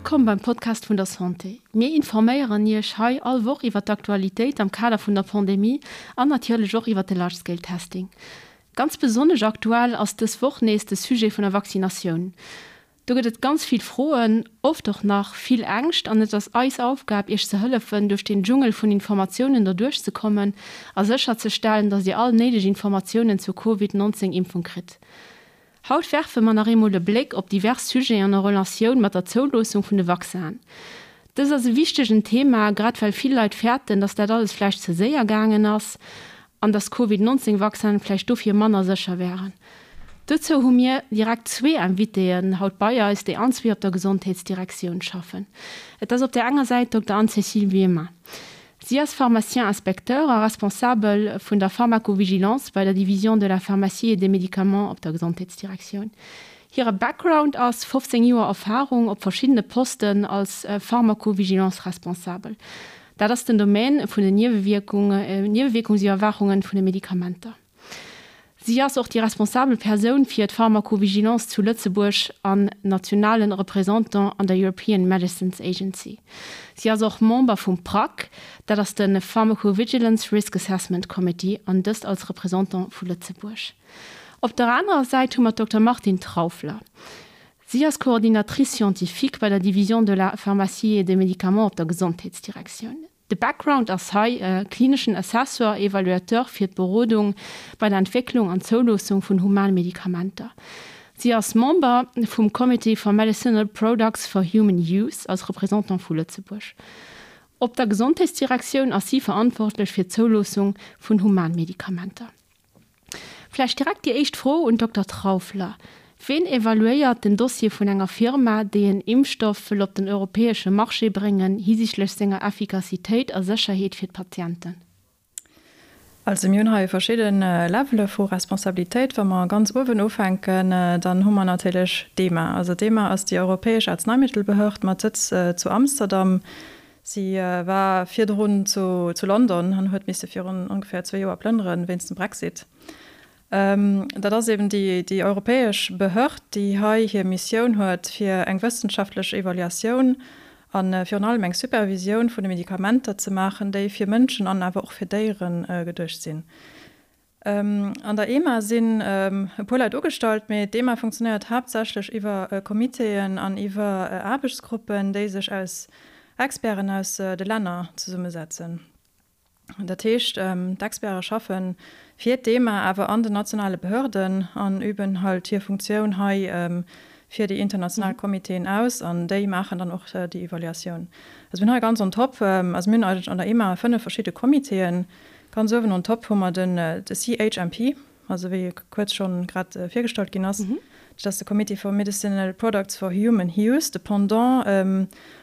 Wëllkomm beim Podcast vun der Santé. Mir informéieren Iech hei all Woch iwwer d'Aktualitéit am Kader vun der Pandemie an natierlech och iwwer de Large Scale Testing. Ganz besonnesch aktuell ass dës Woch nees de Sujet vun der Vaccinatioun. Do gëtt et ganz vill Froen, oft och nach vill Ängscht an et ass eis Aufgab Iech ze hëllefen duerch deen Dschungel vun Informatiounen derduerch ze kommen a sécher ze stellen, dass Dir all néideg Informatiounen zur Covid 19 Impfung kritt. Haut werfe mer nach eemol e Bléck op divers Sujeten en Relatioun mat der Zouloossung vun de Vaccinen. Dëst ass e wichtegen Thema, grad well vill Leit fäerten, dass dat alles vläicht ze séier gaangen ass an dass Covid 19 Vaccinen vläicht dofir manner sécher wären. Dozou hu mir direkt zwee Invitéen haut bei eis, déi allenzwee op der Gesondheetsdirektioun schaffen. Et ass op där enger Säit Dokter Anne-Cécile Wiemer. Si ass Pharmacien inspecteur a Responsabel vun der Pharmacovigilance bei der Division de la pharmacie et des médicaments op der Gesondheetsdirektioun. Hire Background ass 15 Joer Erfarung op verschiddene Posten als Pharmacovigilance-Responsabel. Dat ass den Domaine vun den Niewewierkungsiwwerwaachungen vun de Medikamenter. Si ass och déi responsabel Persoun fir d'Pharmacovigilance zu Lëtzebuerg an nationalen Représentant an der European Medicines Agency. Si ass och Member vum PRAC, dat ass de Pharmacovigilance Risk Assessment Committee, an dëst als Représentant vu Lëtzebuerg. Op der anerer Säit hu mer d'Dokter Martine Trauffler. Si ass Coordinatrice scientifique bei der Division de la pharmacie et des médicaments op der Gesondheetsdirektioun. De Background ass hei klineschen Assessor, Evaluateur fir d'Berodung bei der Entwécklung an Zouloossung vun Humanmedikamenter. Si ass Member vum Committee for Medicinal Products for Human Use als Représentant vu Lëtzebuerg. Op der Gesondheetsdirektioun ass si verantwortlech fir d'Zouloossung vun Humanmedikamenter. Vläicht direkt déi éischt Fro un d'Dokter Trauffler, Ween evaluéiert den Dossier vun enger Firma, déi en Impfstoff wëll op den europäesche Marché bréngen, hisichtlech senger Effikassitéit a Sécherheet fir d'Patienten? Also mir hunn hei verschidde Levele vu Responsabilitéit. Wa mer ganz uewen ufänken, dann hu mer natierlech d'EMA. Also d'EMA ass déi europäesch Arzneimittelbehörd mat Sëtz zu Amsterdam. Si war virdrun zu London an huet misse virun ongeféier zwee Joer plënnere wéinst dem Brexit. Dat ass eben déi europäesch Behörd, déi hei hir Missioun huet, fir eng wëssenschaftlech Evaluatioun a virun allem eng Supervisioun vun de Medikamenter ze maachen, déi fir Mënschen an awer och fir Déiere geduecht sinn. An der EMA sinn e puer Leit ugestallt, mee d'EMA funktionéiert haaptsächlech iwwer Comitéen an iwwer Aarbechtsgruppen, déi sech aus Experten aus de Länner zesummesetzen. Dat heescht, d'Experte schaffe fir d'EMA, awer an den nationale Behörden an üben halt hir Funktioun hei fir déi international Comitéen aus an déi maachen dann och déi Evaluatioun. Also mir hunn hei ganz on top, also mir hunn eigentlech an der EMA 5 verschidde Comitéen, Ganz uewen on top hu mer den de CHMP, also wéi e kuerz schonn grad virgestallt ginn ass. Dat ass de Committee for Medicinal Products for Human Use. De Pendant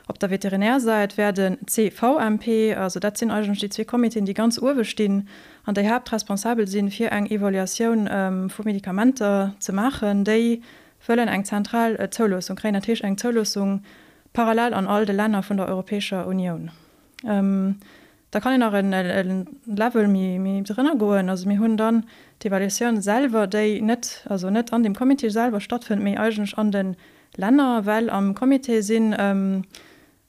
op der Veterinärsäit wär de CVMP. Also dat sinn eigentlech déi zwee Comitéen, déi ganz uewe stinn an déi haaptresponsabel sinn, fir eng Evaluatioun vu Medikamenter ze maachen, déi wëllen eng zentral Zouloossung kréien, dat heescht eng Zouloossung parallel an all de Länner vun der Europäescher Unioun. Da kann een nach e Level méi drënner goen. Also mir hunn dann d'Evaluatioun selwer, déi net, also net an dem Comité selwer stattfënnt, mee eigentlech an de Länner, well am Comité sinn,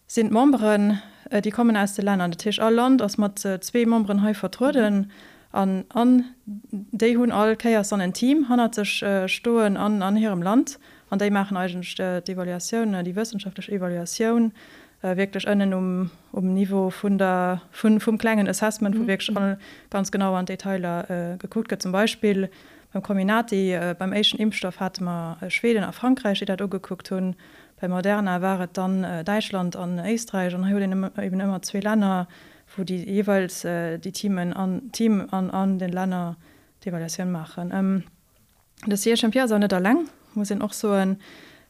sinn d'Memberen, déi kommen aus de Länner. Dat heescht, all Land ass mat zwee Memberen hei vertrueden an an déi hunn all Kéiers dann en Team hannert sech stoen an an hirem Land an déi maachen eigentlech d'Evaluatioun, déi wëssenschaftlech Evaluatioun wierklech ënnen um um Niveau vun der, vun, vum klengen Assessment, wou wierklech all ganz genau an d'Detailer gekuckt gëtt. Zum Beispill beim Comirnaty, beim éischten Impfstoff hate mer Schweden a Frankräich, déi dat ugekuckt hunn. Bei Moderna war et dann Däitschland an Éisträich. An hei huet een eben ëmmer zwee Länner, wou déi jeeweils déi Teamen an, Team an an den Länner d'Evaluatioun maachen. De CHMP ass awer net eleng, muss een och soen,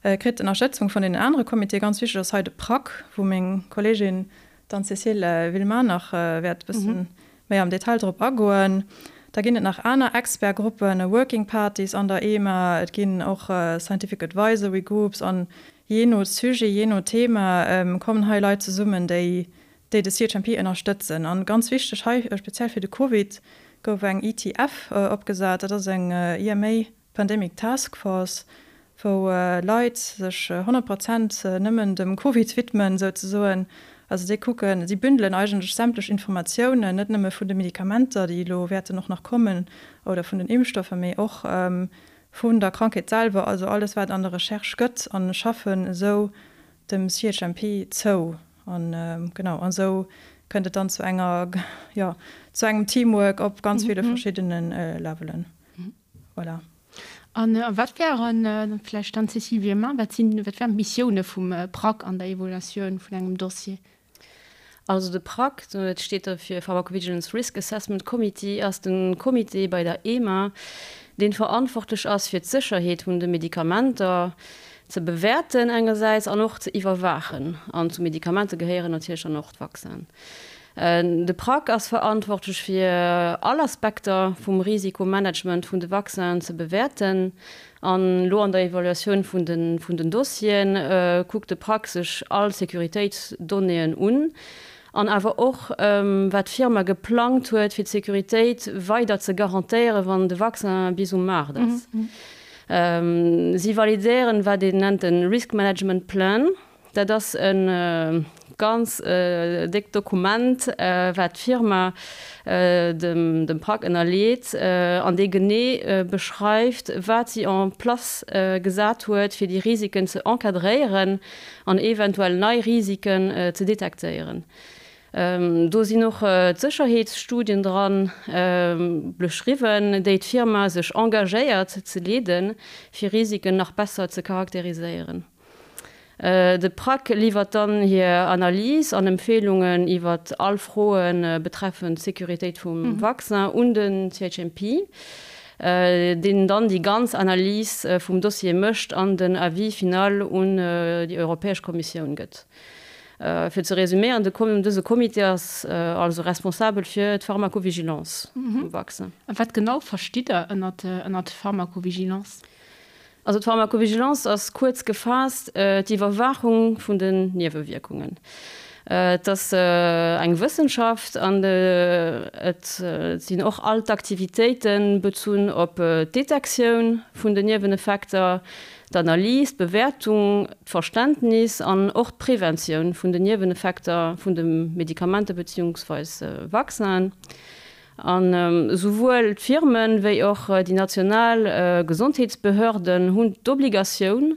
kritt Ënnerstëtzung vun deenen anere Comitéen. Ganz wichteg ass hei de PRAC, wou meng Kolleegin d'Anne-Cécile Villemain nach wäert e bësse méi am Detail drop agoen. Da ginn et nach aner Expertgruppen, Working Parties an der EMA, et ginn och Scientific Advisory Groups an jee no Sujet, jee no Thema kommen hei Leit zesummen, déi déi de CHMP ënnerstëtzen. An ganz wichteg hei, speziell fir de Covid, gouf eng ETF opgesat, dat ass eng EMA Pandemic Task Force, wou Leit sech 100 Prozent nëmmen dem Covid widmen souzesoen. Also déi kucken, si bündelen eigentlech sämtlech Informatiounen, net nëmme vun de Medikamenter, déi elo wäerten och nach kommen, oder vun den Impfstoffer, mee och vun der Krankheet selwer, also alles wat an der Recherche gëtt, a schaffen esou dem CHMP zou. An genau, an esou kënnt et dann zu enger, jo, zu engem Teamwork op ganz ville verschiddene Levelen. Voilà. An wat wären, vläicht dann d'Cécile Villemin, wat sinn, wat wären d'Missioune vum PRAC an der Evaluatioun vun engem Dossier? Also de PRAC, dat steet da fir Pharmacovigilance Risk Assessment Committee, ass de Comité bei der EMA, dee verantwortlech ass fir d'Sécherheet vun de Medikamenter ze bewäerten engersäits an och ze iwwerwaachen. An zu Medikamenter gehéieren natierlech dann och d'Vaccinen. De PRAC ass verantwortlech fir all Aspekter vum Risikomanagement vun de Vaccinen ze bewäerten. An elo an der Evaluatioun vun den vun den Dossieren kuckt de PRAC sech all Sécuritéitsdonnéeën un an awer och wat d'Firma geplangt huet fir d'Sécuritéit weider ze garantéieren, wann de Vaccin bis um Maart ass. Si validéieren wat een nennt de Risk Management Plan. Dat ass e ganz déckt Dokument, wat d'Firma dem PRAC ënnerleet an dee genee beschreift, wat si en place gesat huet, fir déi Risiken ze encadréieren an eventuell nei Risiken ze detektéieren. Do sinn och d'Sécherheetsstudien dran beschriwwen, déi d'Firma sech engagéiert ze leeden, fir Risiken nach besser ze charakteriséieren. De PRAC liwwert dann hir Analys an Empfeelungen iwwer all Froe betreffend d'Sécuritéit vum Vaccin un den CHMP, deen dann déi ganz Analys vum Dossier mécht an den Avis final un déi Europäesch Kommissioun gëtt. Fir ze resuméieren, dëse Comité ass also responsabel fir d'Pharmacovigilance vum Vaccin. A wat genau verstitt Der ënnert Pharmacovigilance? Also d'Pharmacovigilance ass kuerz gefaasst d'Iwwerwaachung vun den Niewewierkungen. Et ass eng Wëssenschaft an et sinn och all d'Aktivitéite bezunn op d'Detektioun vun den Nieweneffekter, d'Analys, d'Bewäertung, d'Verständnis an och d'Preventioun vun den Nieweneffekter vun de Medikamenter beziehungsweis Vaccinen. An esouwuel d'Firmen wéi och déi national Gesondheetsbehörden hunn d'Obligatioun,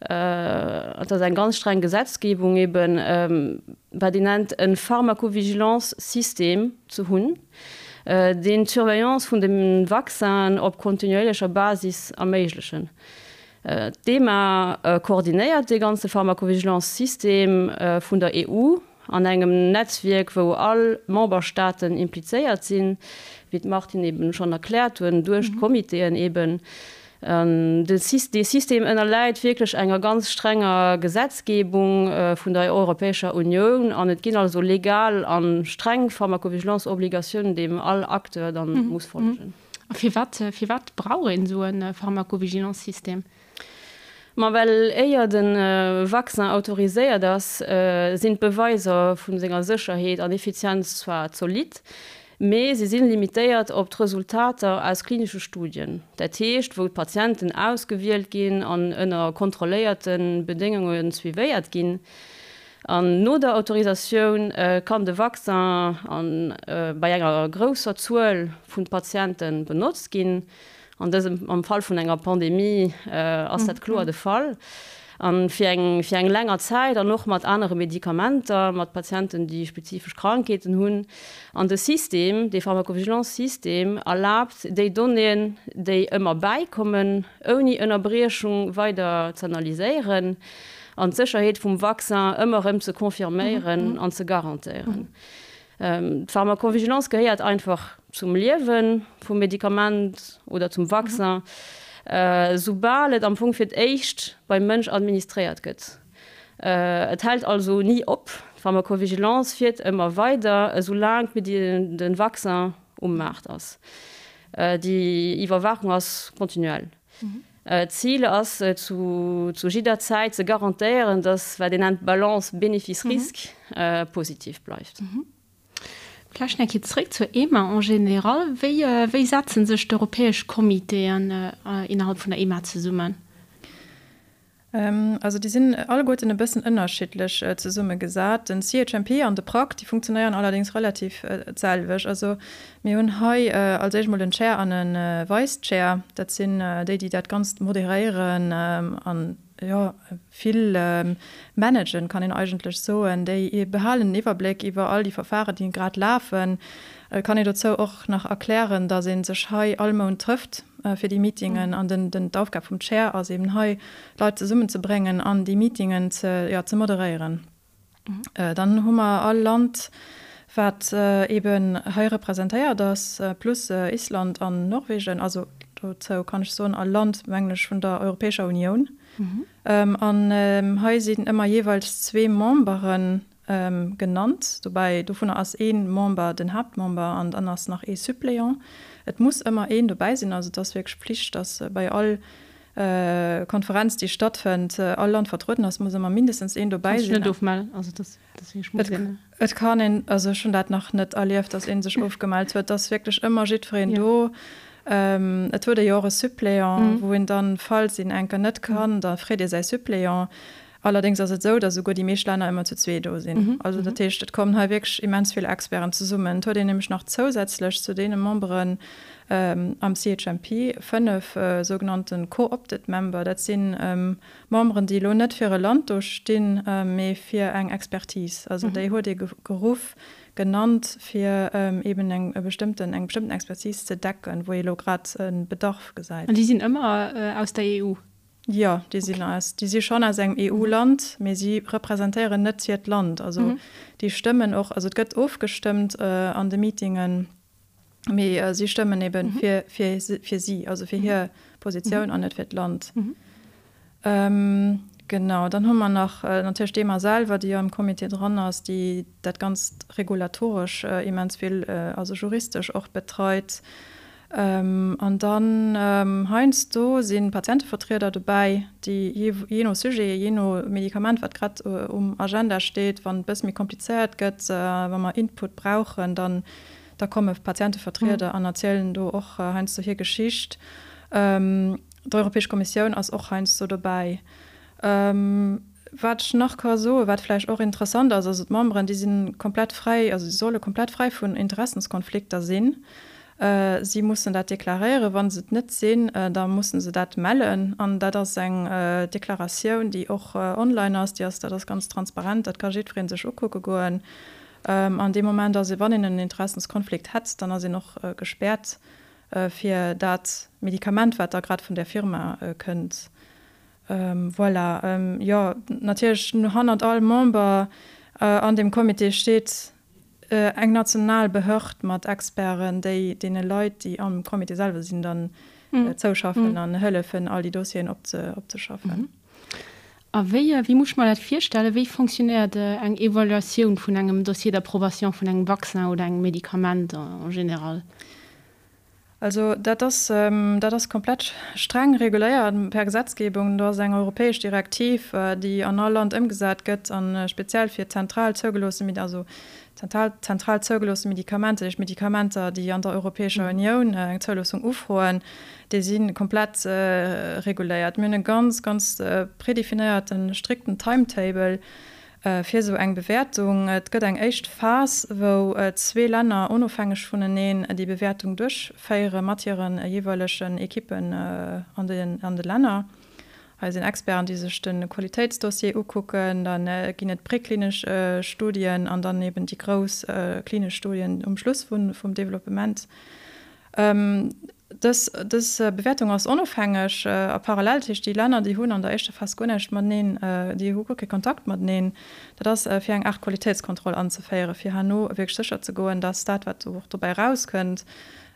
et ass eng ganz streng Gesetzgebung eben, wat een nennt e Pharmacovigilance-System ze hunn, deen d'Surveillance vun de Vaccinen op kontinuéierlecher Basis erméiglechen. D'EMA koordinéiert dee ganze Pharmacovigilance-System vun der EU An engem Netzwierk, wou all Memberstaaten implizéiert sinn, wéi d'Martine eben schonn erkläert hunn, duerch d'Comitéen eben. Dee System ënnerläit wierklech enger ganz strenger Gesetzgebung vun der Europäescher Unioun an et ginn also legal a streng Pharmacovigilance-Obligatiounen, deem all Acteur dann muss follegen. A firwat, firwat brauch een esou e Pharmacovigilance-System? Ma well éier de Vaccin autoriséiert ass, sinn d'Beweiser vu senger Sécherheet an Effizienz zwar zolidd, mee se si limitéiert op d'Resultater aus klinesche Studien, dat heescht wou d'Patienten ausgewielt ginn an ënner kontrolléierte Bedéngunge suivéiert ginn. An no der Autorisatioun kann de Vaccin bei enger grousser Zuel vu Patiente benotzt ginn. An dësem, am Fall vun enger Pandemie ass dat kloer de Fall. A fir eng, fir eng länger Zäit an och mat anere Medikamenter, mat Patienten, déi spezifesch Krankheeten hunn. An de System, dee Pharmacovigilance-System erlaabt, déi Donnéeën, déi ëmmer bäikommen, ouni Ënnerbriechung weider z'analyséieren an d'Sécherheet vum Vaccin ëmmer erëm ze confirméieren an ze garantéieren. D'Pharmacovigilance gehéiert einfach zum Liewe vum Medikament oder zum Vaccin, soubal et am Fong fir d'éischt beim Mënsch administréiert gëtt. Et hält also ni op, d'Pharmacovigilance fiert ëmmer weider, esoulaang de Vaccin um Maart ass. Déi Iwwerwaachung ass kontinuell. D'Zil ass, zu jidder Zäit ze garantéieren, datt wat een nennt d'Balance Bénéfice-Risque positiv bleift. Vläicht nach eng Kéier zréck zur EMA en général. Wéi, wéi setzen sech d'europäesch Comitéen innerhalb vun der EMA zesummen? Also déi sinn alleguerten e bëssen ënnerschiddlech zesummegesat. Den CHMP an de PRAC, déi funktionéieren allerdéngs relativ d'selwecht. Also mir hunn hei als éischt mol en Chair an e Vice Chair. Dat sinn déi, déi dat Ganzt moderéieren an, jo, vill managen, kann een eigentlech soen. Déi behalen den Iwwerbléck iwwer all déi Verfahren, déi grad lafen. Et kann een dozou och nach erklären, datt ee sech hei all Mount trëfft fir déi Meetingen an den, den, d'Aufgab vum Chair ass eben hei, d'Leit zesummenzebréngen an déi Meetingen ze, jo, ze moderéieren. Dann hu mer all Land, wat eben hei representéiert ass, plus Island an Norwegen, also dozou kann ech soen, all Land, mengen ech, vun der Europäescher Unioun. An hei sinn ëmmer jeeweils zwee Memberen genannt. Dobäi, dovunner ass ee Member den Haaptmember an dann ass nach ee Suppléant. Et muss ëmmer een dobäi sinn, also et ass wierklech Pflicht, dass bei all Konferenz, déi stattfënnt, all Land vertrueden ass, muss ëmmer mindestens een dobäi sinn. Kanns dech net ofmellen? Also dass, dass wierklech muss een. Et kann een, also ech hunn dat nach net erlieft, dass ee sech ofgemellt huet. Et ass wierklech ëmmer jiddwereen do. Et huet ee jo och e Suppléant, wou een dann, falls een enker net kann, da freet ee säi Suppléant. Allerdéngs ass et esou, datt esouguer déi meescht Länner ëmmer zu zwee do sinn. Also dat heescht, et kommen hei wierklech immens vill Experten zesummen. Et huet een nämlech nach zousätzlech zu deene Memberen am CHMP 5 sougenannte co-opted member. Dat si Memberen, déi elo net fir e Land do stinn, mee fir eng Expertise. Also déi huet ee geruff, genannt, fir eeben eng bestëmmten, eng bestëmmten Expertise ze decken, wou ee elo grad e Bedarf gesäit. An déi sinn ëmmer aus der EU? Jo, déi sinn aus, déi si schonn aus engem EU-Land, mee si representéieren net hiert Land. Also déi stëmmen och, also et gëtt ofgestëmmt an de Meetingen, mee si stëmmen ebe fir, fir, fir si, also fir hir Positioun an net fir d'Land. Genau, dann hu mer nach natierlech d'EMA selwer, déi jo am Comité dran ass, déi dat Ganzt regulatoresch immens vill, also juristesch och betreit. An dann heiansdo si Patientevertrieder dobäi, déi jee no Sujet, jee no Medikament, wat grad um Agenda steet, wann et e bësse méi komplizéiert gëtt, wa mer Input brauchen, dann da komme Patientevertrieder an erzielen do och heiansdo hir Geschicht. D'Europäesch Kommissioun ass och heiansdo dobäi. Wat ech nach ka soen, wat vläicht och interessant ass, also d'Memberen, déi si komplett fräi, also si solle komplett fräi vun Interessenskonflikter sinn. Si mussen dat deklaréieren. Wa se et net sinn, da musse se dat mellen. An dat ass eng Deklaratioun, déi och online ass. Déi ass, dat ass ganz transparent, dat ka jiddweree sech ukucke goen. An dee Moment ass ee, wann een en Interessenskonflikt hätt, dann ass een och gespäert fir dat Medikament, wat da grad vun där Firma kënnt. Voilà, jo, natierlech hannert all Member an deem Comité steet eng national Behörd mat Experten, déi deene Leit, déi am Comité selwer sinn, dann zouschaffen an hëllefen, all déi Dossieren opzeschaffen. A wéi, wéi muss ech mer dat virstellen? Wéi fonctionnéiert eng Evaluatioun vun engem Dossier d'approbation vun engem Vaccin oder engem Medikament en général? Also dat ass, dat ass komplett streng reguléiert per Gesetzgebung. Do ass eng europäesch Direktiv, déi an all Land ëmgesat gëtt a speziell fir zentral zougeloosse, also zentral, zentral zougeloosse Medikamenter, dat heescht Medikamenter, déi an der Europäescher Unioun eng Zouloossung ufroen, déi si komplett reguléiert. Mir hunn e ganz, ganz predefinéierten, strikten Timetable, Fir esou eng Bewäertung, et gëtt eng éischt Phas, wou zwee Länner onofhängeg vuneneen déi Bewäertung duerchféiere mat hire jeeweilegen Ekippen an de Länner. Hei sinn Experten, déi sech de Qualitéitsdossier ukucken. Da ginn et präklinesch Studien an dann eben déi grouss klinesch Studien um Schluss vum Developpement. Dës Bewäertung ass onofhängeg a parallel, dat heescht déi Länner, déi hunn an der éischter Phas guer näischt mateneen, déi hu guer kee Kontakt mateneen. Dat ass fir eng Aart Qualitéitskontroll anzeféieren, fir herno wierklech sécher ze goen, dass dat, wat och dobäi erauskënnt,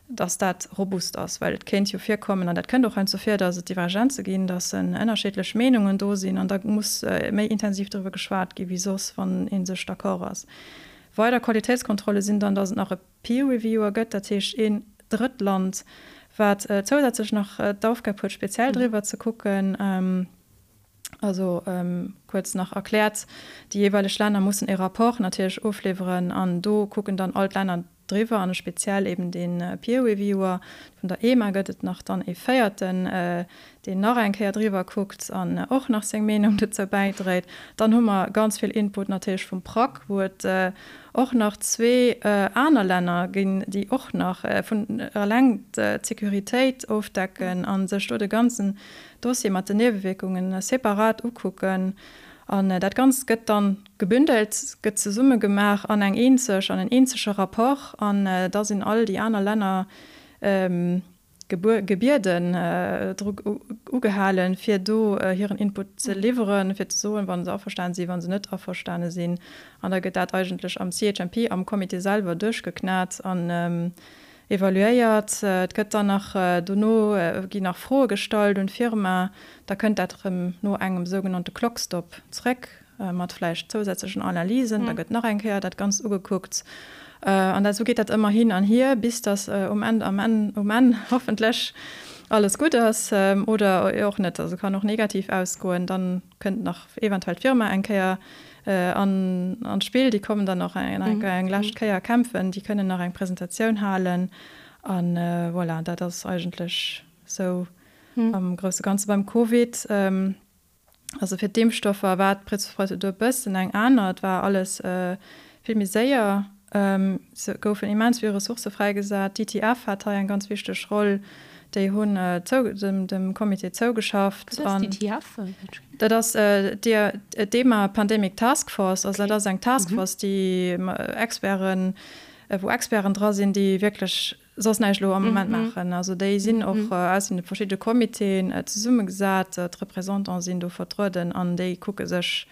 dass dat robust ass. Well et kéint jo virkommen, an dat kënnt och heiansdo vir, dass et Divergenze ginn, dass ënnerscheedlech Meenungen do sinn an da muss méi intensiv driwwer geschwat gi wéi soss, wann ee sech d'accord ass. Weider Qualitéitskontrolle sinn dann, dass et nach e Peer Reviewer gëtt, dat heescht een Drëttland, wat zousätzlech nach d'Aufgab huet, speziell driwwer ze kucken. Also kuerz nach erkläert, déi jeeweileg Länner mussen e Rapport natierlech ofliwweren an do kucken dann all d'Länner. driwwer an speziell eben dee Peer Reviewer. Vun der EMA gëtt et nach dann ee véierten, deen nach eng Kéier driwwer kuckt an och nach seng Meenung dozou bäidréit. Dann hu mer ganz vill Input natierlech vum PRAC, wou et och nach zwee aner Länner ginn, déi och nach vun eleng d'Sécuritéit ofdecken a sech do de ganzen Dossier mat den Niewewierkungen separat ukucken. An dat Ganzt gëtt dann gebündelt, gëtt zesummegemaach an eng eenzeg, an en eenzege Rapport. An da sinn all déi aner Länner gebieden, dru ugehalen, fir do hiren Input ze liwweren, fir ze soen, wa se averstane sinn, wa se net averstane sinn. An da gëtt dat eigentlech am CHMP, am Comité selwer duerchgeknat an evaluéiert. Et gëtt dann nach, dono ginn nach Froe gestallt un d'Firma. Da kënnt dat erëm no engem sougenannte Clock stop zréck mat vläicht zousätzlechen Analysen. Da gëtt nach eng Kéier dat Ganzt ugekuckt. An dat, esou geet dat ëmmer hin an hier, bis datt um Enn, am Enn, um Enn hoffentlech alles gutt ass oder och net. Also kann och negativ ausgoen. Dann kënnt nach eventuell d'Firma eng Kéier an d'Spill. Déi kommen dann nach eng lescht Kéier kämpfen. Déi kënnen nach eng Presentatioun halen. A voilà, dat ass eigentlech esou am grousse Ganze beim Covid. Also fir d'Impfstoffer war d'Prozedur e bëssen eng aner. Et war alles vill méi séier. Et goufen immens vill Ressourcë fräigesat. D'ITF hat hei eng ganz wichteg Roll. Déi hunn dem Comité zougeschafft. Wat ass d'ITF? Dat ass d'EMA Pandemic Task Force. Also dat ass eng Task Force, déi Experten, wou Experten dra sinn, déi wierklech soss näischt elo am Moment maachen. Also déi sinn och aus den verschidde Comitéen zesummegesat, d'Représentante sinn do vertrueden an déi kucke sech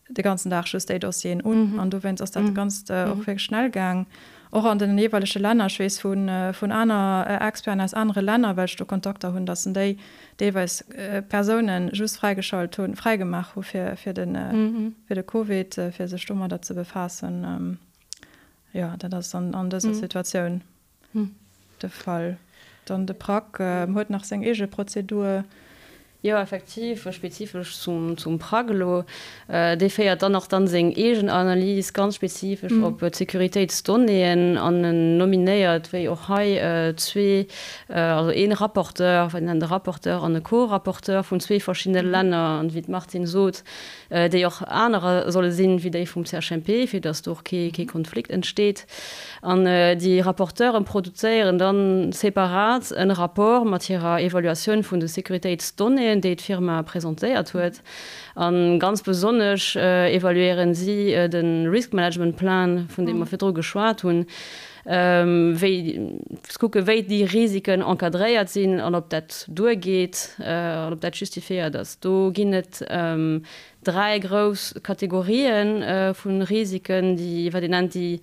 de ganzen Dag just déi Dossieren un. An dowéinst ass dat Ganzt och wierklech schnell gaang, och an den jeeweilege Länner. Ech weess vun aner Experten aus anere Länner, well ech do Kontakter hunn, datt en déi deelweis Persoune just fräigeschalt hunn, fräigemaach hu fir de Covid, fir sech domadder ze befaassen. Jo, dat ass an dëser Situatioun de Fall. Dann de PRAC huet nach seng eege Prozedur. Jo, effektiv, spezifesch zum PRAC elo. Dee féiert dann och dann seng eegen Analys ganz spezifesch op d'Sécuritéitsdonnéeën an en nominéiert, wéi och hei, zwee, also ee Rapporteur, wat een nennt e Rapporteur an e Co-Rapporteur vun zwee verschiddene Länner. An wéi d'Martine sot, déi och anerer solle sinn wéi déi vum CHMP, fir datt do och kee Konflikt entsteet. An déi Rapporteure produzéieren dann separat en Rapport mat hirer Evaluatioun vun de Sécuritéitsdonnéeën, déi d'Firma presentéiert huet. A ganz besonnesch evaluéieren si de Risk Management Plan, vun deem mer virdru geschwat hunn, wéi ze kucken, wéi déi Risiken encadréiert sinn an ob dat duergeet an ob dat justifiéiert ass. Do ginn et dräi grouss Kategorien vu Risiken, déi, wat een nennt déi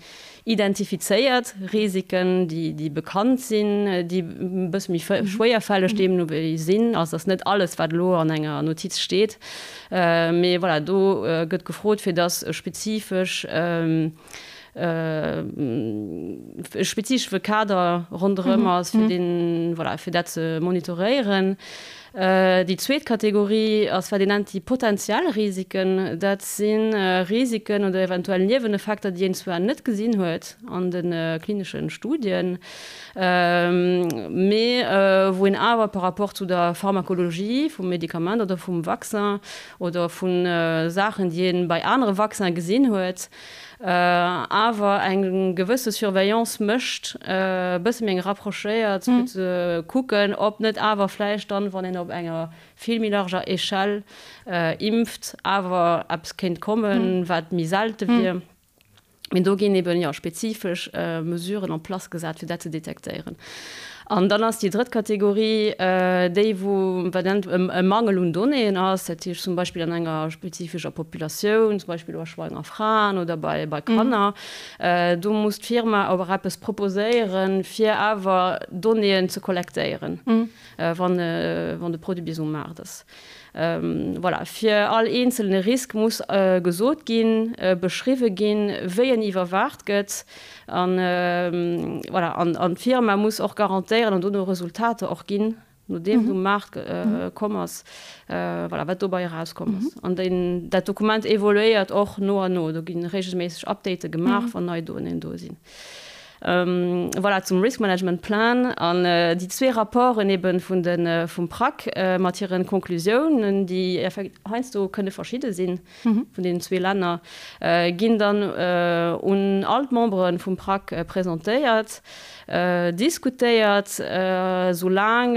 identifizéiert Risiken, déi, déi bekannt sinn, déi e bësse méi schwéierfälleg deemno wéi sinn. Also ass net alles, wat elo an enger Notiz steet, mee voilà, do gëtt gefrot, fir dass spezifesch, e spezifesche Kader ronderëm ass, fir deen, voilà, fir dat ze monitoréieren. Déi zweet Kategorie ass, wat een nennt déi potenziell Risiken. Dat si Risiken oder eventuell Nieweneffekter, déi een zwar net gesinn huet an de klinesche Studien, mee wou een awer par rapport zu der Pharmakologie vum Medikament oder vum Vaccin oder vu Saachen, déi ee bei anere Vaccine gesinn huet, awer eng gewësse Surveillance mécht, e bësse méi eng rapprochéiert, fir ze kucken, ob net awer vläicht dann, wann een op enger vill méi larger Échelle impft, awer eppes kéint kommen, wat méi selte wier. Mee do ginn eben, jo, spezifesch Mesuren en place gesat, fir dat ze detektéieren. An dann ass déi drëtt Kategorie déi, wou wat nennt e Mangel un Donnéeën ass, dat heescht zum Beispill an enger spezifescher Populatioun, zum Beispill bei schwanger Fraen oder bei bei Kanner. Do muss d'Firma awer eppes proposéieren, fir awer Donnéeën ze kollektéieren, wann wann de Produit bis um Maart ass. Voilà, fir all eenzelne Risk muss gesot ginn, beschriwwe ginn, wéi en iwwerwaacht gëtt. An voilà, an d'Firma muss och garantéieren an dono Resultater och ginn, nodeem et um Maart komm ass, voilà, wat dobei erauskomm ass. An deen, dat Dokument evoluéiert och no an no. Do gi reegelméisseg Update gemaach, wann nei Donnéeën do sinn. Voilà, zum Risk Management Plan an déi zwee Rapporten eben vun de vum PRAC mat hiren Konklusiounen, déi heiansdo kënne verschidde sinn vun deenen zwee Länner, ginn dann un all d'Membere vum PRAC presentéiert, diskutéiert, soulaang,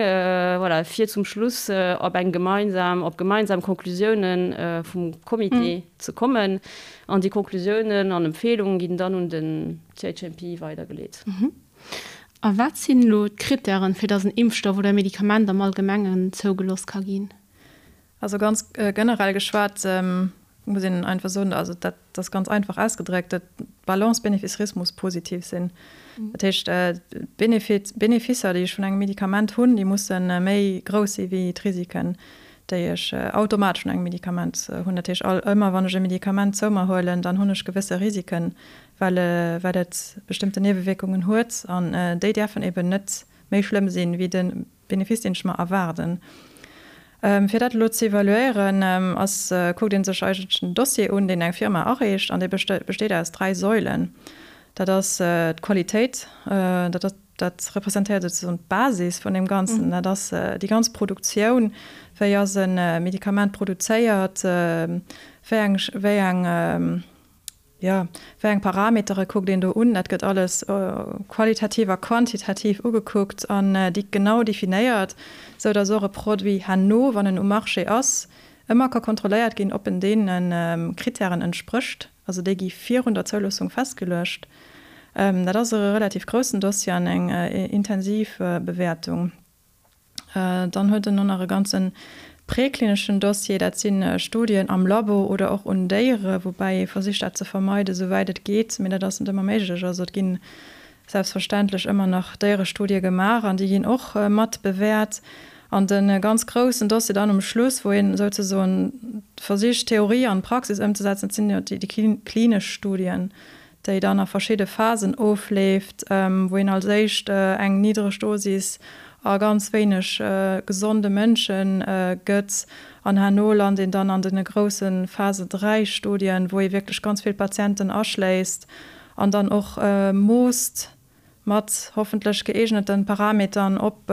voilà, fir zum Schluss op eng gemeinsam, op gemeinsam Konklusiounen vum Comité ze kommen. An déi Konklusiounen an Empfehlungen ginn dann un den CHMP weidergeleet. A wat sinn elo d'Krittären, fir datt en Impfstoff oder e Medikament am Allgemengen zougelooss ka ginn? Also ganz generell geschwat muss een einfach soen, also dat ass ganz einfach ausgedréckt, d'Balance Bénéfice-Risque muss positiv sinn. Dat heescht, d'Benefisser, déi ech vun engem Medikament hunn, déi musse méi grouss si wéi d'Risiken, déi ech automatesch vun engem Medikament hunn. Dat heescht, all ëmmer wann ech e Medikament zou mer huelen, dann hunn ech gewësse Risiken, well well et bestëmmten Niewewierkungen huet an déi däerfen eben net méi schlëmm sinn, wéi de Benefice, deen ech mer erwaarden. Fir dat elo ze evaluéieren, ass kuckt ee sech eigentlech den Dossier un, deen eng Firma areecht an dee besteet aus 3 Seuilen. Dat ass d'Qualitéit, dat ass Dat representéiert souzesoen d'Basis vun deem Ganzen. Dat ass déi ganz Produktioun. Wéi ass e Medikament produzéiert? Wéi eng, wéi eng, jo, wéi eng Parametere kuckt een do un? Dat gëtt alles qualitativ a quantitativ ugekuckt an déi genau definéiert, sou datt och e Produit herno, wann en um Marché ass, ëmmer ka kontrolléiert ginn, ob en deene Krittären entsprécht. Also déi gi virun der Zouloossung festgeluecht. Dat ass e relativ groussen Dossier an eng intensiv Bewäertung. Dann huet en och nach e ganze präklineschen Dossier. Dat si Studien am Labo oder och un Déiere, woubäi ee versicht dat ze vermeiden, esouwäit et geet. Mee dat ass net ëmmer méiglech. Also et ginn selbstverständlech ëmmer nach Déierestudie gemaach an déi ginn och mat bewäert. An de ganz groussen Dossier dann um Schluss, wou een souzesoen versicht, Theorie an Praxis ëmzesetzen, dat sinn jo déi klinesch Studien, déi dann a verschidde Phasen ofleeft, wou een als éischt eng niddreg Dosis a ganz wéineg gesonde Mënsche gëtt an herno lant een dann an de grousse Phase 3 Studien, wou ee wierklech ganz vill Patienten aschléisst an dann och moosst mat hoffentlech gëeegneten Parametern, ob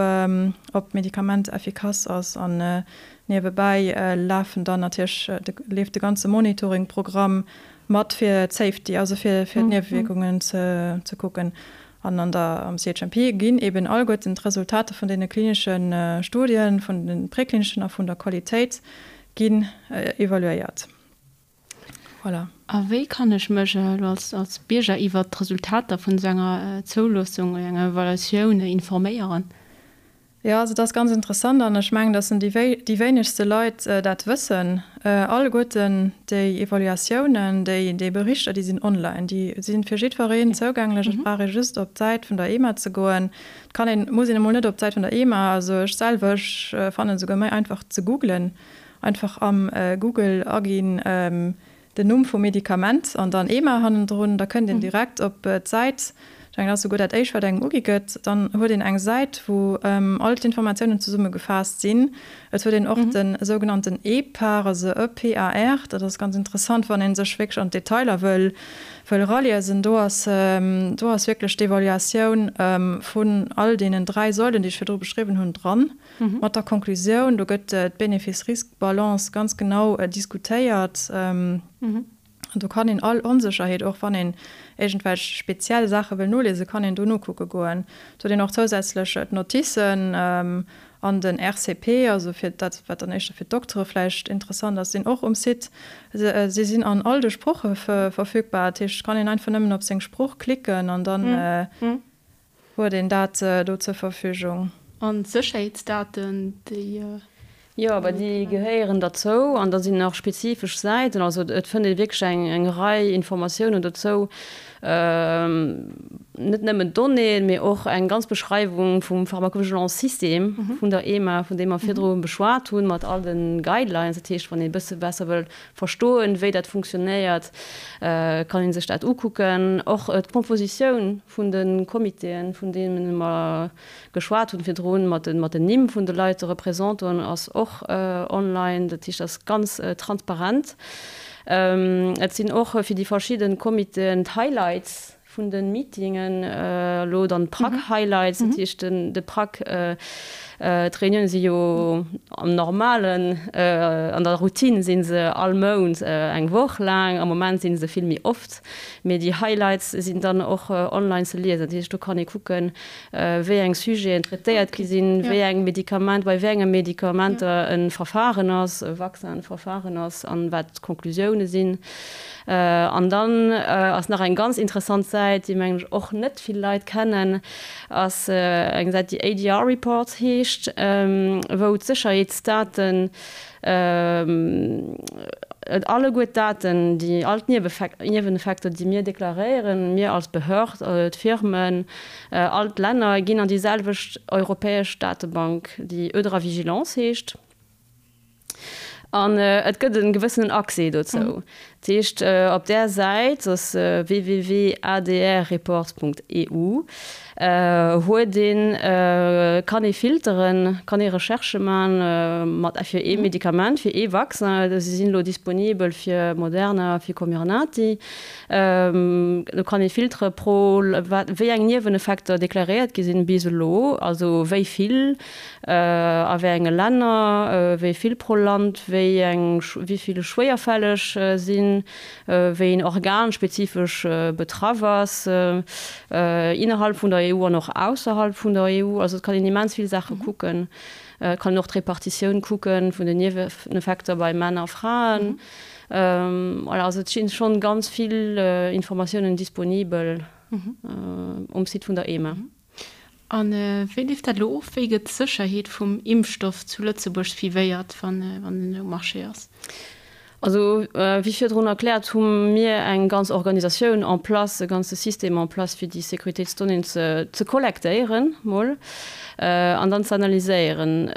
ob d'Medikament effikass ass. An niewebäi lafen dann natierlech leeft de ganze Monitoring-Programm mat fir d'Safety, also fir fir d'Niewewierkungen ze ze kucken. An an der am CHMP ginn eben alleguerten d'Resultater vun deene klinesche Studien, vun de präklineschen a vun der Qualitéit ginn evaluéiert. Voilà. A wéi kann ech mech elo als, als Bierger iwwert d'Resultater vun esou enger Zouloossung oder enger Evaluatioun informéieren? Jo, also dat ass ganz interessant an ech mengen, datt déi wéi, déi wéinegste Leit dat wëssen. Alleguerten déi Evaluatiounen, déi, déi Berichter, déi sinn online, déi si fir jiddwereen zougänglech. Et brauch ee just op d'Säit vun der EMA ze goen. Et kann een, muss een emol net op d'Säit vun der EMA, also ech selwer, ech fannen et esouguer méi einfach ze googlen. Einfach am Google aginn den Numm vum Medikament an dann EMA hannendrun, da kënnt een direkt op d'Säit. Ech mengen, dat ass souguer dat éischt, wat engem ugi gëtt. Dann huet een eng Säit, wou all d'Informatiounen zesummegefaasst sinn. Et huet een och de sougenannten EPAR, also E-P-A-R. Dat ass ganz interessant, wann ee sech wierklech an d'Detailer wëll eraliesen. Do ass, do ass wierklech d'Evaluatioun vun all deenen 3 Säulen, déi ech virdru beschriwwen hunn, dran. Mat der Konklusioun, do gëtt d'Benefice-Risk-Balance ganz genau diskutéiert. An do kann een all Onsécherheet, och wann een iergendwelch speziell Saache wëll noliesen, kann een do nokucke goen. Et huet een och zousätzlech d'Noticen an den RCP, also fir dat, wat dann éischter fir d'Doktere vläicht interessant ass, sinn och um Site. Si sinn an all de Sprooche verfügbar. Dat heescht, et kann een einfach nëmmen op seng Sprooch klicken an dann Huet een dat do zur Verfügung? An d'Sécherheetsdaten, déi. Jo, awer déi gehéieren derzou an da sinn nach spezifesch Säiten. Also et fënnt ee wierklech eng eng Rei Informatiounen dozou, net nëmmen d'Donnéeën, mee och eng ganz Beschreiwung vum Pharmacovigilance-System vun der EMA, vun deem mer virdru beschwat hunn, mat all de Guidelines. Dat heescht, wann ee e bësse besser wëll verstoen, wéi dat funktionéiert, kann ee sech dat ukucken. Och d'Compositioun vun de Comitéen, vun deene mer geschwat hunn virdrun, mat den Nimm vun de Leit, de Représentanten, ass och online. Dat heescht, dat ass ganz transparent. Et sinn och fir déi verschidde Comitéen d'Highlights. vun de Meetingen, elo dann d'PRAC-Highlights, dat heescht de PRAC, d'Reunioune si jo am normalen, an der Routine si se all Mount eng Woch laang, am Moment si se vill méi oft, mee déi Highlights sinn dann och online ze liesen. Dat heescht, do kann ee kucken, wéi eng Sujeten traitéiert gi sinn, wéi eng Medikament, bei wéi enge Medikamenter e Verfahren ass, e Vaccin-Verfahren ass an wat d'Konklusioune sinn. An dann ass nach eng ganz interessant Säit, déi mengen ech och net vill Leit kennen, ass eng Säit, déi ADR Reports heescht, wou d'Sécherheetsdaten, alleguer d'Daten, déi all d'Nieweneffekter, déi mir deklaréieren, mir als Behörd, d'Firmen, all d'Länner, ginn an déi selwecht europäesch Datebank, déi EudraVigilance heescht. An et gëtt e gewëssenen Accès dozou. Dat heescht, op där Säit, dat ass www.adrreports.eu, huet een, kann ee filteren, kann ee Recherchë man mat fir ee Medikament, fir ee Vaccin. Si sinn elo disponibel fir Moderna, fir Comirnaty. Do kann ee filtere pro wat wéi eng Nieweneffekter deklaréiert gi sinn bis elo, also wéi vill, A wéi enge Länner, wéi vill pro Land, wéi eng, wéi vill schwéierfälleg sinn, wéi een Organ spezifesch betraff ass, innerhalb vun der EU an och ausserhalb vun der EU. Also et kann een immens vill Saache kucken. Et kann een och d'Repartitioun kucken vun den Nieweneffekter bei Männer a Fraen. Voilà, also et stinn schonn ganz vill Informatiounen disponibel um Site vun der EMA. A wéi leeft dat elo of? Wéi gëtt d'Sécherheet vum Impfstoff zu Lëtzebuerg suivéiert, wann en um Marché ass? Also, wéi virdrun erkläert, hu mir eng ganz Organisatioun en place, e ganze System en place, fir déi Sécuritéitsdonnéeën ze kollektéieren mol an dann ze analyséieren.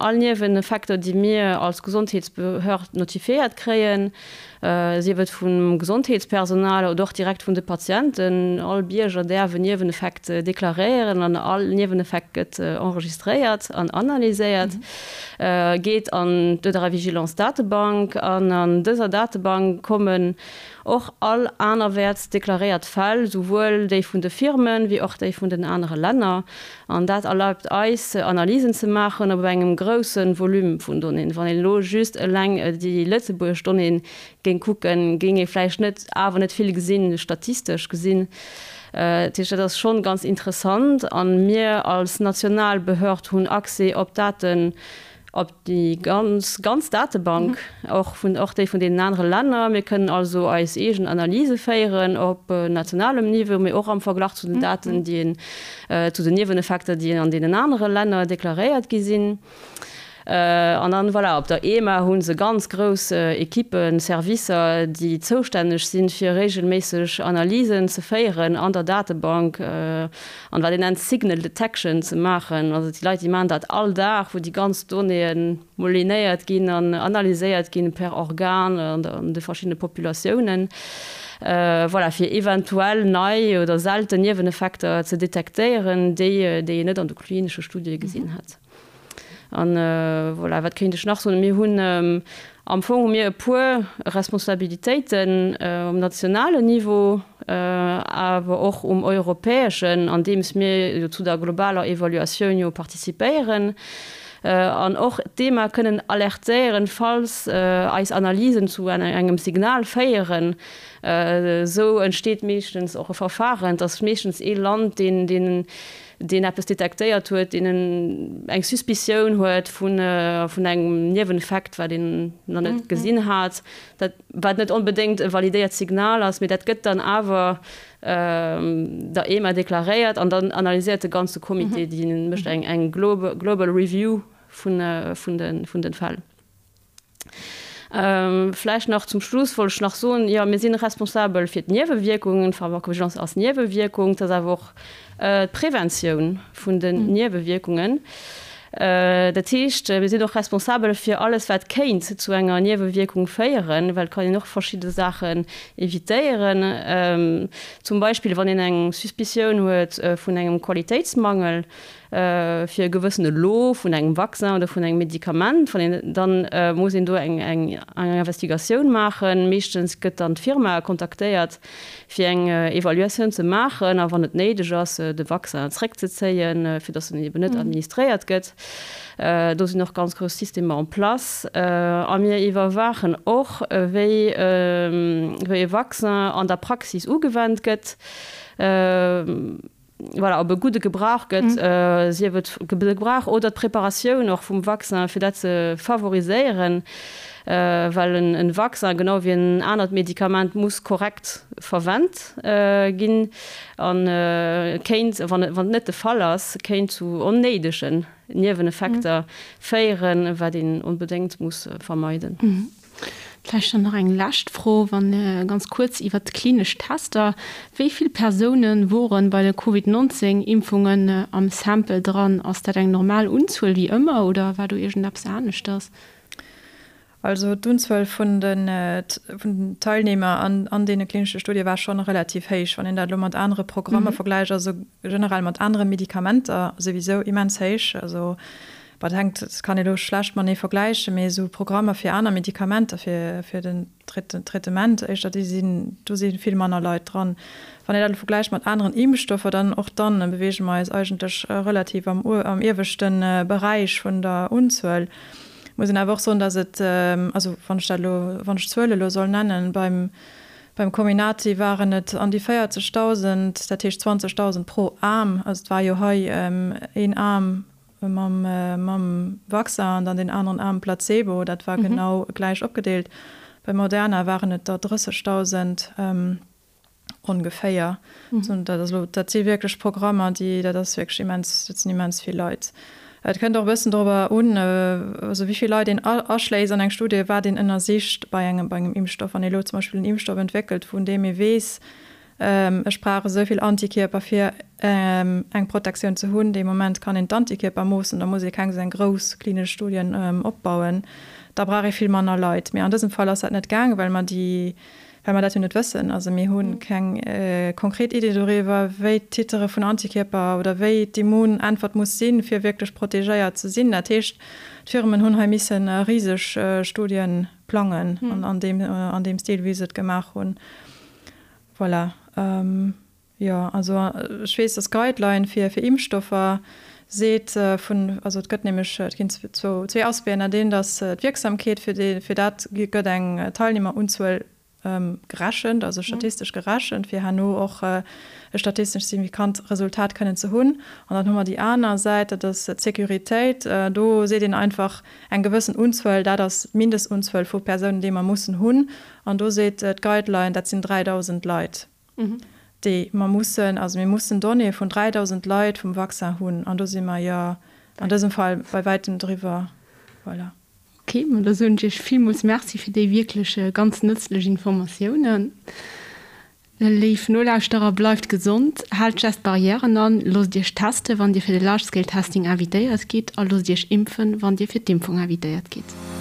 All Nieweneffekter, déi mir als Gesondheetsbehörd notifiéiert kréien, sief et vum Gesondheetspersonal oder och direkt vun de Patienten. All Bierger däerf en Nieweneffekt deklaréieren an all Nieweneffekt gëtt enregistréiert an analyséiert, geet an d'EudraVigilance-Datebank an an dëser Datebank kommen och all anerwäerts deklaréiert Fäll, souwuel déi vun de Firmen, wéi och déi vun den anere Länner. An dat erlaubt eis, Analysen ze maachen op engem grousse Volume vun Donnéeën. Wann een elo just eleng déi lëtzebuergesch Donnéeën géing kucken, géing ee vläicht net, awer net vill gesinn, statistesch gesinn. Dat heescht, dat ass schonn ganz interessant. A mir als national Behörd hunn Accès op Daten, op déi ganz ganz Datebank, och vun och déi vun deenen anere Länner. Mir kënnen also eis eegen Analyse féieren op nationalem Niveau, mee och am Verglach zu den Daten, déi een, zu den Nieweneffekter, déi an deenen anere Länner deklaréiert gi sinn. An dann, voilà, op der EMA hu se ganz grouss Ekippen, Servicer, déi zoustänneg sinn, fir regelméisseg Analysen ze féieren an der Datebank, an wat een nennt Signal Detection ze maachen. Also déi Leit, déi maachen dat all Dag, wou déi ganz Donnéeën moulinéiert ginn an analyséiert ginn per Organ an de verschiddene Populatiounen, voilà, fir eventuell nei oder selten Nieweneffekter ze detektéieren, déi déi een net an de klinesche Studie gesinn hätt. An voilà, wat kéint ech nach soen? Mir hunn am Fong hu mir e puer Responsabilitéiten um nationalen Niveau, awer och um europäeschen, andeems mir jo zu der globaler Evaluatioun jo participéieren an och d'EMA kënnen alertéieren, falls eis Analysen zu engem Signal féieren. Esou entsteet meeschtens och e Verfahren. Et ass meeschtens ee Land, deen, deen deen eppes detektéiert huet, deen eng Suspicioun huet vun engem Nieweneffekt, wat een nach net gesinn hat, dat wat net onbedéngt e validéiert Signal ass, mee dat gëtt dann awer der EMA deklaréiert an dann analyséiert de ganze Comité, dee mécht eng global review vun de Fäll. Vläicht nach zum Schluss wollt ech nach soen, jo, mir si responsabel fir d'Niewewierkungen, d'Pharmacovigilance ass Niewewierkung, et ass awer och d'Preventioun vun den Niewewierkungen. Dat heescht, mir sinn och responsabel fir alles, wat kéint zu enger Niewewierkung féieren, well et kann een och verschidde Saachen evitéieren. Zum Beispill, wann een eng Suspicioun huet vun engem Qualitéitsmangel fir e gewëssene Lot vun engem Vaccin oder vun engem Medikament, wann een, dann muss een do eng Investigatioun maachen. Meeschtens gëtt dann d'Firma kontaktéiert, fir eng Evaluatioun ze maachen a wann et néideg ass, de Vaccin zréckzezéien, fir datt en eben net administréiert gëtt. Do sinn och ganz grouss Systemer en place. A mir iwwerwaachen och, wéi e Vaccin an der Praxis ugewennt gëtt. Voilà, ob e gudde Gebrauch gëtt, sief et de Gebrauch oder d'Preparatioun och vum Vaccin, fir dat ze favoriséieren, well en Vaccin, genau wéi en anert Medikament, muss korrekt verwennt ginn a kéint, wann et net de Fall ass, kéint zu onnéidegen Nieweneffekter féieren, wat een onbedéngt muss vermeiden. Vläicht dann nach eng lescht Fro, wann ganz kuerz iwwert d'klinesch Tester. Wéi vill Persoune woren bei de Covid 19 Impfungen am Sample dran? Ass dat eng normal Unzuel wéi ëmmer oder war do iergendeppes aneschters? Also d'Unzuel vun den Teilnehmer an deene klinesche Studie war schonn relativ héich, wann een dat elo mat anere Programmer vergläicht, also generell mat anere Medikamenter souwisou immens héich. Also Wat hänkt, dat kann ee lo schlecht matenee vergläichen, mee esou Programmer fir aner Medikamenter, fir, fir den Traitement éischter, déi sinn, do si vill manner Leit dran. Wann een dat elo vergläicht mat aneren Impfstoffer, dann och dann beweege mer eis eigentlech relativ am, am ieweschte Beräich vun der Unzuel. Muss een awer och soen, datt et, also wann ech dat elo, wann ech d'Zuele elo soll nennen, beim, beim Comirnaty waren et an déi 40.000, dat heescht 20.000 pro Aarm, also et war jo hei een Aarm, Mam mam Vaccin an dann deen aneren Aarm Placebo, dat war genau gläich opgedeelt. Bei Moderna waren et der 30.000 ongeféier. Dat ass elo, dat si wierklech Programmer, déi, dat ass wierklech immens, dat sinn immens vill Leit. Et kënnt och e bëssen dorobber un, also wéi vill Leit een aschléisst an eng Studie, wat een ënnersicht bei engem bei engem Impfstoff. Wann ee elo zum Beispill en Impfstoff entwéckelt, vun deem ee weess, Ech brauch esou vill Antikierper fir eng Protektioun ze hunn. Dee Moment kann een d'Antikierper moossen, da muss ee keng esou eng grouss klinesch Studien opbauen. Da brauch ee vill manner Leit. Mee an dësem Fall ass dat net gaangen, well mer déi, well mer dat jo net wëssen. Also mir hu keng konkret Idee doriwwer, wéi d'Titere vun Antikierper oder wéi d'Immunäntwert muss sinn, fir wierklech protegéiert ze sinn. Dat heescht, d'Firmen hunn hei misse riseg Studie plangen an deem, an deem Stil, wéi se et gemaach hunn. Voilà. Jo, also ech weess, dass d'Guideline fir fir Impfstoffer seet vun, also et gëtt nämlech, et ginn zwou, zwee Aspecten, dat eent ass d'Wierksamkeet, fir déi, fir dat gëtt eng Teilnehmerunzuel gerechent, also statistesch gerechent, fir herno och e statistesch signifikant Resultat kënnen ze hunn. An dann hu mer déi aner Säit, dat ass d'Sécuritéit. Do seet een einfach eng gewëssen Unzuel, dat ass d'Mindestunzuel vu Persounen, déi mer mussen hunn. An do seet d'Guideline, dat sinn 3.000 Leit, déi mer mussen, also mir mussen Donnéeë vun 3.000 Leit vum Vaccin hunn. An do si mer jo an dësem Fall bei wäitem driwwer. Voilà. Ok, ma da soen ech Iech villmools Merci fir déi wierklech ganz nëtzlech Informatiounen. Léif Nolauschterer, bleift gesond, haalt d'Gest Barrièren an, loosst Iech testen, wann Dir fir de Large Scale Testing invitéiert gitt a loosst Iech impfen, wann Dir fir d'Impfung invitéiert gitt.